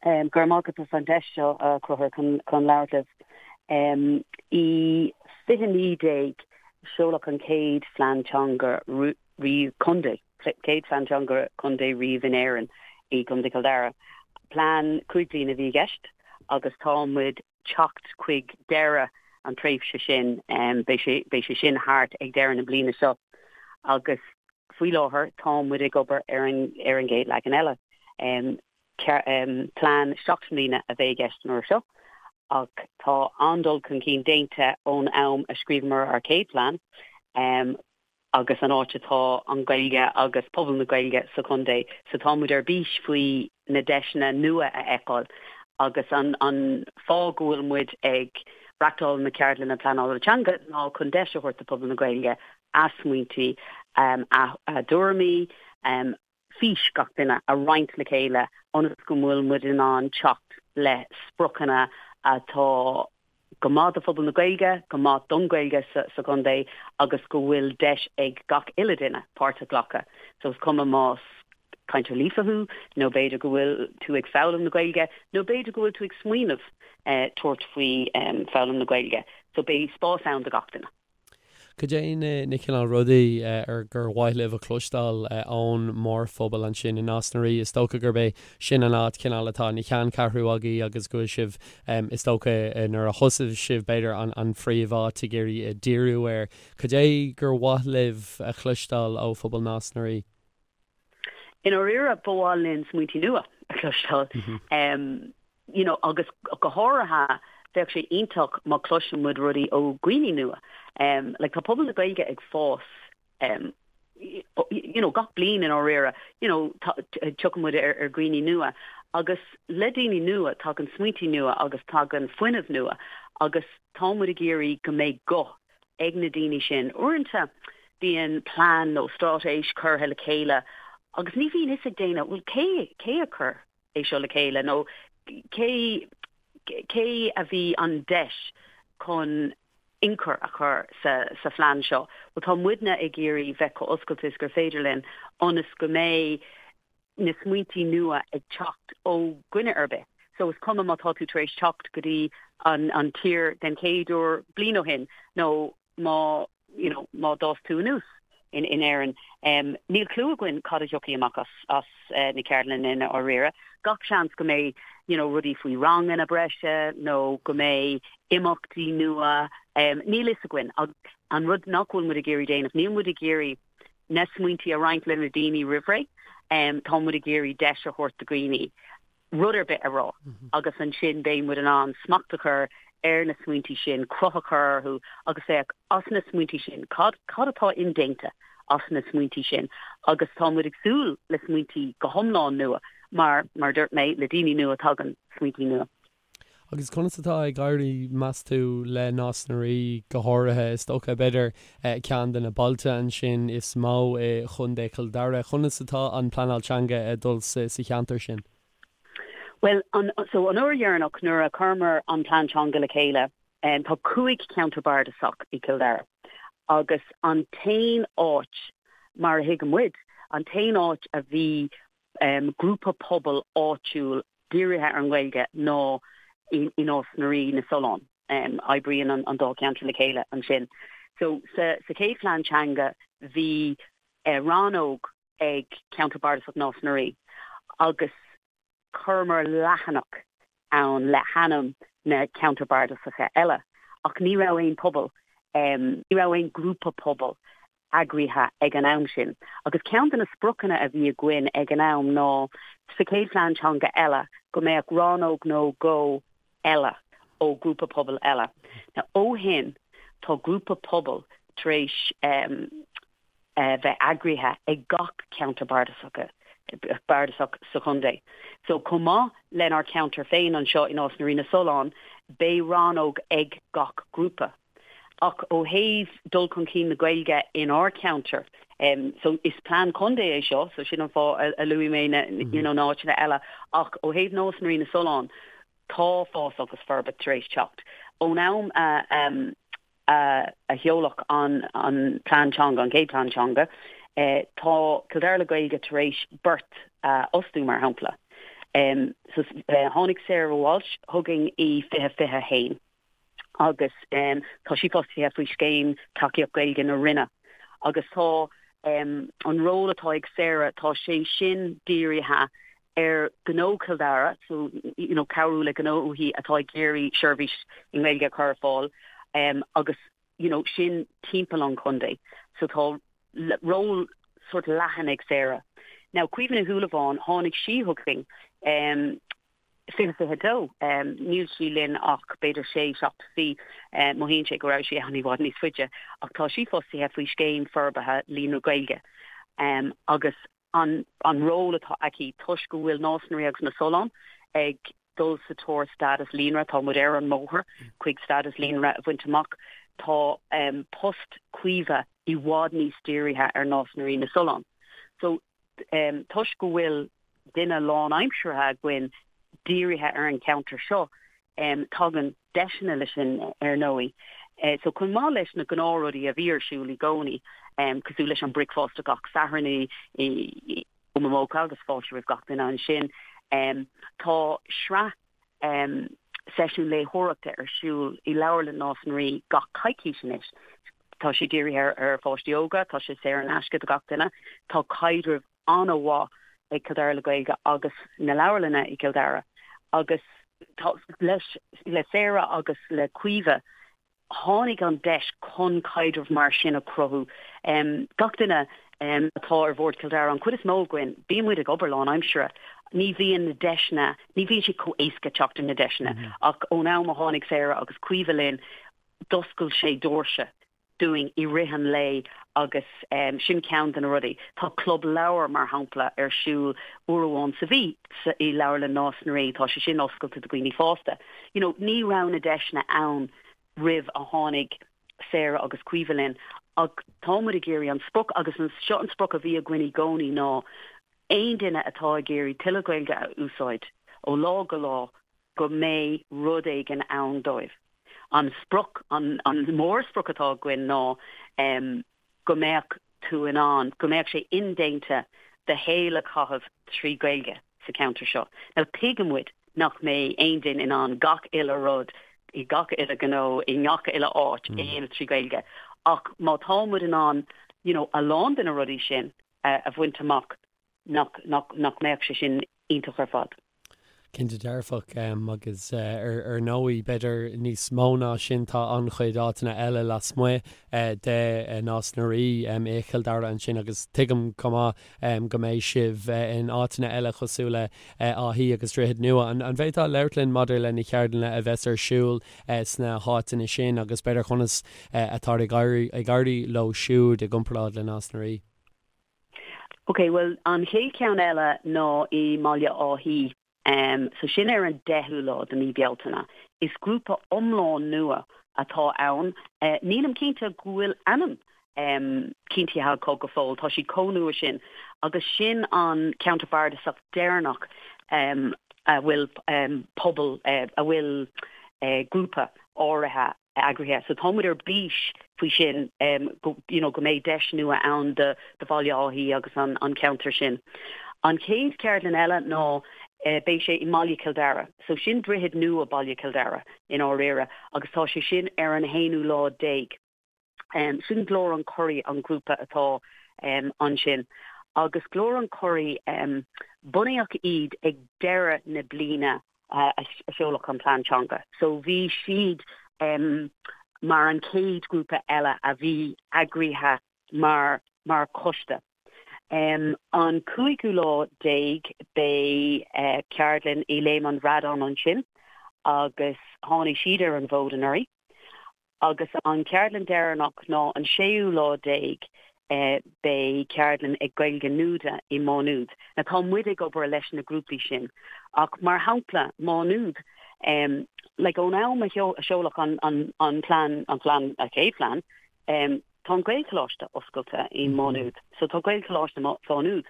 Go raibh maith agat as an deis seo, a Chonchúir, chun labhairt libh. I 2019, seoladh an chéad phlean teanga riamh contae, chéad phlean teanga contae riamh in Éirinn, i gContae Chill Dara. Plean 5 bliana a bhí i gceist agus tá muid teacht chuig deireadh an tréimhse sin, beidh sé, beidh sé sin thart ag deireadh na bliana seo agus faoi láthair tá muid ag obair ar an, ar an gcéad leagan eile. Plean 7 mbliana a bheidh i gceist an uair seo ach tá an-dul chun cinn déanta ón am a scríobhamar ár chéad phlean agus an áit atá an Ghaeilge agus pobal na Gaeilge sa chontae so tá muid ar bís faoi na deiseanna nua a fheiceáil agus an an fáth go bhfuil muid ag reachtáil na ceardlanna pleanála teanga ná chun deis a thabhairt do phobal na Gaeilge a smaointí, a dtuairimí, fís gach duine a roinnt le chéile ionas go bhfuil muid in ann teacht le spriocanna atá go maith do phobal na Gaeilge, go maith don Ghaeilge sa chontae agus go bhfuil deis ag gach uile duine páirt a ghlacadh. So is cuma más cainteoir líofa thú nó b'fhéidir go bhfuil tú ag foghlaim na Gaeilge nó b'fhéidir go bhfuil tú ag smaoineamh tabhairt faoi foghlaim na Gaeilge. So beidh spás ann do gach duine. Cad é na cineál rudaí ar gur mhaith libh a chloisteáil ón mórphobal ansin i Nás na Rí? Is dócha gurb é sin an áit cineál atá ina cheanncheathrú agaibh agus go bhfuil sibh, is dócha nuair a thosaigh sibh b'fhéidir an phríomháit ag iarraidh díriú air. Cad é gur mhaith libh a chloisteáil ó phobal Nás na Rí? I ndáiríre, ba mhaith linn smaointí nua a chloisteáil. You know, agus go háirithe, bheadh sé iontach má chloiseann muid rudaí ó dhaoine nua. Like, tá pobal na Gaeilge ag fás, you know, gach bliain i ndáiríre, you know, tiocfaidh muid ar ar dhaoine nua. Agus le daoine nua, tagann smaointí nua agus tagann fuinneamh nua agus tá muid ag iarraidh go mbeidh guth ag na daoine sin. Uaireanta bíonn plean nó straitéis curtha le chéile agus ní bhíonn fhios ag daoine, bhuel cé, cé a chuir é seo le chéile nó cé, cé a bhí an deis chun ionchur a chur sa, sa phlean seo. Bhuel tá muidne ag iarraidh bheith chomh oscailte is gur féidir linn ionas go mbeidh na smaointí nua ag teacht ó dhuine ar bith. So is cuma má tá tú tar éis teacht go dtí an an tír den chéad uair bliain ó shin nó má you know má d'fhás tú anuas in in Éirinn. Um, níl clue againn cad a thiocfaidh amach as as uh, na ceardlanna i ndáiríre. Gach seans go mbeidh you know, rudaí faoi ranganna breise nó go mbeidh imeachtaí nua. Um, níl fhios againn. An rud nach bhfuil muid ag iarraidh déanamh, níl muid ag iarraidh na smaointí a roinnt le na daoine roimh ré. Tá muid ag iarraidh deis a thabhairt do dhaoine rud ar bith a rá agus ansin beidh muid in ann smacht a chur ar na smaointí sin, cruth a chur orthu agus féach as na smaointí sin, cad cad atá indéanta as na smaointí sin agus tá muid ag súil le smaointí go hiomlán nua mar, mar a dúirt mé, le daoine nua tagann smaointí nua. Agus conas atá ag éirí, meas tú, le Nás na Rí go háirithe? Is dócha, b'fhéidir, ceann de na bailte ansin is mó i gContae Chill Dara. Conas atá an pleanáil teanga ag dul sa cheantar sin? Bhuel, an, so an uair dheireanach nuair a chuireamar an plean teanga le chéile, tá 5 cheantar bardasach i gCill Dara agus an t-aon áit, mar a thuigeann muid, an t-aon áit a bhí grúpa pobail áitiúil dírithe ar an nGaeilge ná i Nás na Rí, na Solláin. Oibríonn an dá cheantar le chéile ansin. So sa chéad phlean teanga bhí rannóg ag Ceantar Bardasach Nás na Rí agus chuireamar leathanach ann le hainm na ceantar bardasacha eile ach ní raibh aon pobal, ní raibh aon grúpa pobail eagraithe ag an am sin. Agus ceann de na spriocanna a bhí againn ag an am ná sa chéad phlean teanga eile go mbeadh rannóg nó dhó eile ó ghrúpa pobail eile. Now ó shin tá grúpa pobail tar éis bheith eagraithe ag gach ceantar bardasach bardasach sa chontae. So chomh maith lenár ceantar féin anseo i Nás na Rí na Solláin beidh rannóg ag gach grúpa. Ach ó thaobh dul chun cinn na Gaeilge inár ceantar, so is plean contae é seo, so sin an fáth a luaigh mé na you know na áiteanna eile, ach ó thaobh Nás na Rí na Solláin, tá fás agus forbairt tar éis teacht. Ón am a a sheoladh an an plean teanga, an chéad plean teanga, tá Cill Dara le Gaeilge tar éis beirt a fhostú, mar shampla. So tháinig Sarah Walsh chugainn i 2021 agus tá sí fostaithe faoi Scéim Tacaíocht Gaeilge na Roinne agus tá an ról atá ag Sarah, tá sé sin dírithe ar ghnó Chill Dara, so you know cabhrú le gnóthaí atá ag iarraidh seirbhís i nGaeilge a chur ar fáil agus you know sin timpeall an chontae. So tá ról sort leathan ag Sarah. Now Caoimhe Ní Shúilleabháin, tháinig sí chugainn um, 2022, um, níl sí linn ach b'fhéidir sé, 7 mhí, um, mothaíonn sé go raibh sí ann i bhfad níos faide, ach tá sí fostaithe faoi scéim forbartha Líonra Gaeilge um, agus an an ról atá aici toisc go bhfuil Nás na Rí agus na Solláin ag dul sa tóir stádas líonra, tá muid ar an mbóthar chuig stádas líonra a bhaint amach, tá post Caoimhe i bhfad níos dírithe ar Nás na Rí na Solláin. So toisc go bhfuil duine lánaimseartha againn dírithe ar an cheantar seo, tagann deiseanna leis sin ar ndóigh. So chomh maith leis na gnáthrudaí a bhí ar siúl i gcónaí, cosúil leis an bricfeasta gach Satharn i Momoka agus fáilte roimh gach duine ansin, tá sraith seisiún léitheoireachta ar siúl i Leabharlann Nás na Rí gach coicís anois. Tá sé dírithe ar pháistí óga, tá sé saor in aisce do gach duine, tá caidreamh an-mhaith ag Cill Dara le Gaeilge agus na leabharlanna i gCill Dara agus tá leis le Sarah agus le Caoimhe tháinig an deis chun caidreamh mar sin a chruthú. Gach duine atá ar bhord Chill Dara, an chuid is mó againn, bíonn muid ag obair lánaimseartha. Ní bhíonn na deiseanna, ní bhíonn sé chomh éasca teacht ar na deiseanna ach ón am a tháinig Sarah agus Caoimhe linn, d'oscail sé doirse dúinn i rith an lae agus sin ceann de na rudaí. Tá club leabhar, mar shampla, ar siúl uair amháin sa mhí i Leabharlann Nás na Rí, tá sé sin oscailte do dhaoine fásta. You know, ní raibh na deiseanna ann roimh a tháinig Sarah agus Caoimhe linn ach tá muid ag iarraidh an sprioc agus seo an sprioc a bhí againn i gcónaí ná aon duine atá ag iarraidh tuilleadh Gaeilge a úsáid ó lá go lá go mbeidh rud éigin ann dóibh. An sprioc, an mórsprioc atá againn ná go mbeadh tú in ann, go mbeadh sé indéanta do shaol a chaitheamh trí Ghaeilge sa cheantar seo. Now tuigeann muid nach mbeidh aon duine in ann gach uile rud i gach uile ghnó i ngach uile áit a dhéanamh trí Ghaeilge ach má tá muid in ann you know a lán de na rudaí sin a bhaint amach nach, nach, nach mbeadh sé sin iontach ar fad. Cinnte dearfach, agus ar ndóigh, b'fhéidir níos mó ná sin, tá an-chuid áiteanna eile lasmuigh de Nás na Rí i Chill Dara ansin agus tuigim chomh maith go mbeidh sibh in áiteanna eile cosúil le Áth Í agus Droichead Nua. An bhféadfá labhairt linn maidir le na ceardlanna a bheas ar siúl sna háiteanna sin agus b'fhéidir conas atá ag éirí leo siúd i gcomparáid le Nás na Rí? Ok, bhuel an chéad cheann eile ná i mBaile Átha Í. So sin ar an deichiú lá de mí Bealtaine. Is grúpa iomlán nua atá ann. Nílim cinnte go bhfuil ainm cinntithe acu go fóill, tá siad chomh nua sin. Agus sin an ceantar bardasach deireanach a bhfuil pobal, a bhfuil grúpa áirithe eagraithe. So tá muid ar bís faoi sin go you know go mbeidh deis nua ann do do Bhaile Átha Í agus an an ceantar sin. An chéad cheardlann eile ná beidh sé i mBaile Chill Dara. So sin Droichead Nua Baile Chill Dara i ndáiríre agus tá sé sin ar an haonú lá déag. Sin Glór an Churraigh an grúpa atá ansin. Agus Glór an Churraigh bunaíodh iad ag deireadh na bliana a seoladh an plean teanga. So bhí siad mar an chéad ghrúpa eile a bhí eagraithe mar mar choiste. An cúigiú lá déag beidh ceardlann i Léim an Bhradáin ansin agus tháinig siad ar an bhfód anuraidh. Agus an cheardlann deireanach ná an séú lá déag beidh ceardlann ag Gaeilge Nuada i Má Nuad. Now tá muid ag obair leis na grúpaí sin ach mar shampla Má Nuad like ón am a seoladh an an an plean an plean an chéad phlean tá an Gaelcholáiste oscailte i Má Nuad. So tá Gaelcholáiste Mhá Nuad.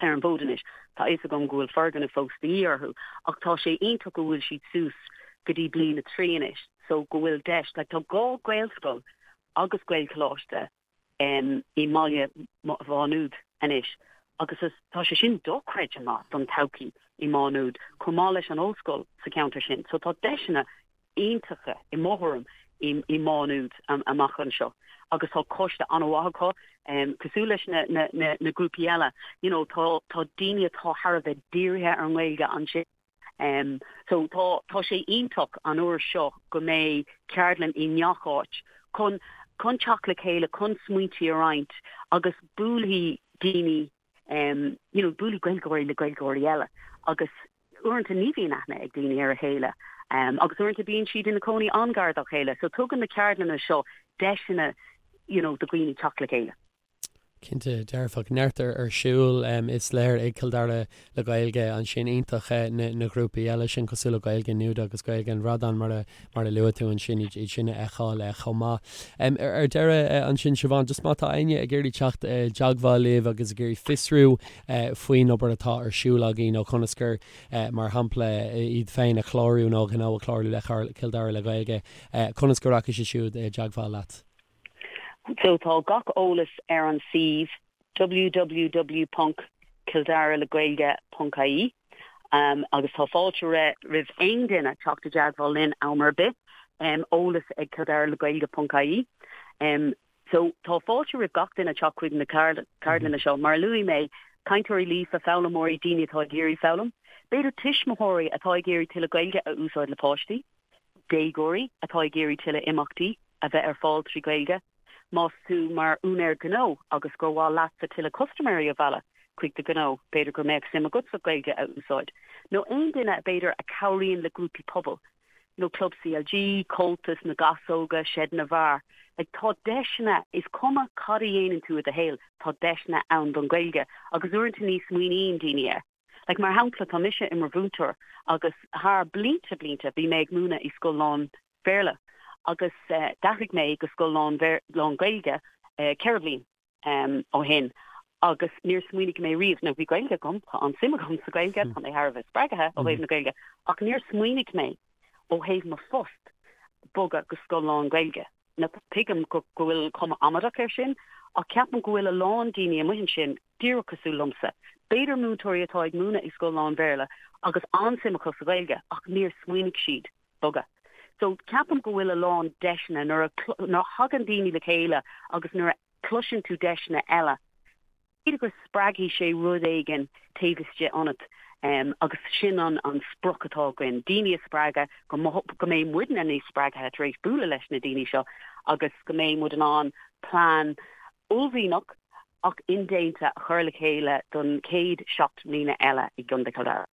ar an bhfód anois. Tá a fhios agam go bhfuil foirgneamh fós de dhíth orthu ach tá sé iontach go bhfuil siad suas go dtí bliain a 3 anois so go bhfuil deis, like tá dhá Ghaelscoil agus Gaelcholáiste i mbaile Mhá Nuad anois agus tá sé sin dochreidte maith don todhchaí. i Má Nuad, chomh maith leis an ollscoil sa cheantar sin. So tá deiseanna iontacha, i mo thuairim, i Má Nuad amach anseo agus tá coiste an-mhaith acu, cosúil leis na grúpaí eile. You know, tá tá daoine atá thar a bheith dírithe ar an nGaeilge ansin. So tá tá sé iontach an uair seo go mbeidh ceardlann i ngach áit chun chun teacht le chéile, chun smaointí a roinnt agus buailfidh daoine you know buailfidh Gaeilgeoirí le Gaeilgeoirí eile agus uaireanta ní bhíonn aithne ag daoine ar a chéile agus uaireanta bíonn siad ina cónaí an-ghar dá chéile so tugann na ceardlanna seo deiseanna you know do dhaoine teacht le chéile. Cinnte dearfach. Neart ar siúl is léir ag Cill Dara le Gaeilge ansin. Iontach na grúpaí eile sin cosúil le Gaeilge Nuada agus Gaeilge an Bhradáin mar a mar a luaigh tú ansin iad sin a fheiceáil chomh maith. Ar deireadh ansin Siobhán, just má tá éinne ag iarraidh teacht i dteagmháil libh agus ag iarraidh fiosrú faoin obair atá ar siúl agaibh nó conas gur mar shampla iad féin a chlárú nó a ngnó a chlárú le Cill Dara le Gaeilge, conas go rachaidh siad siúd i dteagmháil leat? So tá gach eolas ar an suíomh www.kildaraleghaeilge.ie agus tá fáilte roimh aon duine teacht i dteagmháil linn am ar bith, eolas ag kildaraleghaeilge.ie. So tá fáilte roimh gach duine teacht chuig na ceardlanna seo. Mar a luaigh mé, cainteoirí líofa, foghlaimeoirí, daoine atá ag iarraidh foghlaim, b'fhéidir tuismitheoirí atá ag iarraidh tuilleadh Gaeilge a úsáid le páistí. déagóirí atá ag iarraidh tuilleadh imeachtaí a bheith ar fáil trí Ghaeilge. Más tú mar úinéir gnó agus gur mhaith leatsa tuilleadh custaiméirí a mhealladh chuig do ghnó, b'fhéidir go mbeadh suim agatsa Gaeilge a úsáid. Nó aon duine b'fhéidir a chabhraíonn le grúpaí pobail, nó Club CLG, Comhaltas, na Gasóga, Seid na bhFear. Like tá deiseanna, is cuma cad a dhéanann tú i do shaol, tá deiseanna ann don Ghaeilge agus uaireanta ní smaoiníonn daoine air. Like, mar shampla, tá mise i mo mhúinteoir agus thar blianta blianta bhí mé ag múineadh i scoil lán Bhéarla agus d'athraigh mé go scoil lán lán Gaeilge 4 bliain ó shin agus níor smaoinigh mé riamh, nó bhí Gaeilge agam, tá an-suim agam sa Ghaeilge, tá mé thar a bheith spreagtha ó thaobh na Gaeilge, ach níor smaoinigh mé ó thaobh mo phost bogadh go scoil lán Gaeilge. Now tuigim go bhfuil cuma amaideach air sin, ach ceapaim go bhfuil a lán daoine amuigh ansin díreach cosúil liomsa, b'fhéidir múinteoirí atá ag múineadh i scoil lán-Bhéarla agus an-suim acu sa Ghaeilge ach níor smaoinigh siad bogadh. So ceapaim go bhfuil a lán deiseanna nuair a thagann daoine le chéile agus nuair a chloiseann tú deiseanna eile, B'fhéidir go spreagfaidh sé rud éigin taobh istigh ionat agus sin an sprioc atá againn, daoine a spreagadh, go mbeidh muidne níos spreagtha tar éis bualadh leis na daoine seo agus go mbeidh muid in ann plean uaillmhianach ach indéanta a chur le chéile don chéad 7 mbliana eile i gContae Chill Dara.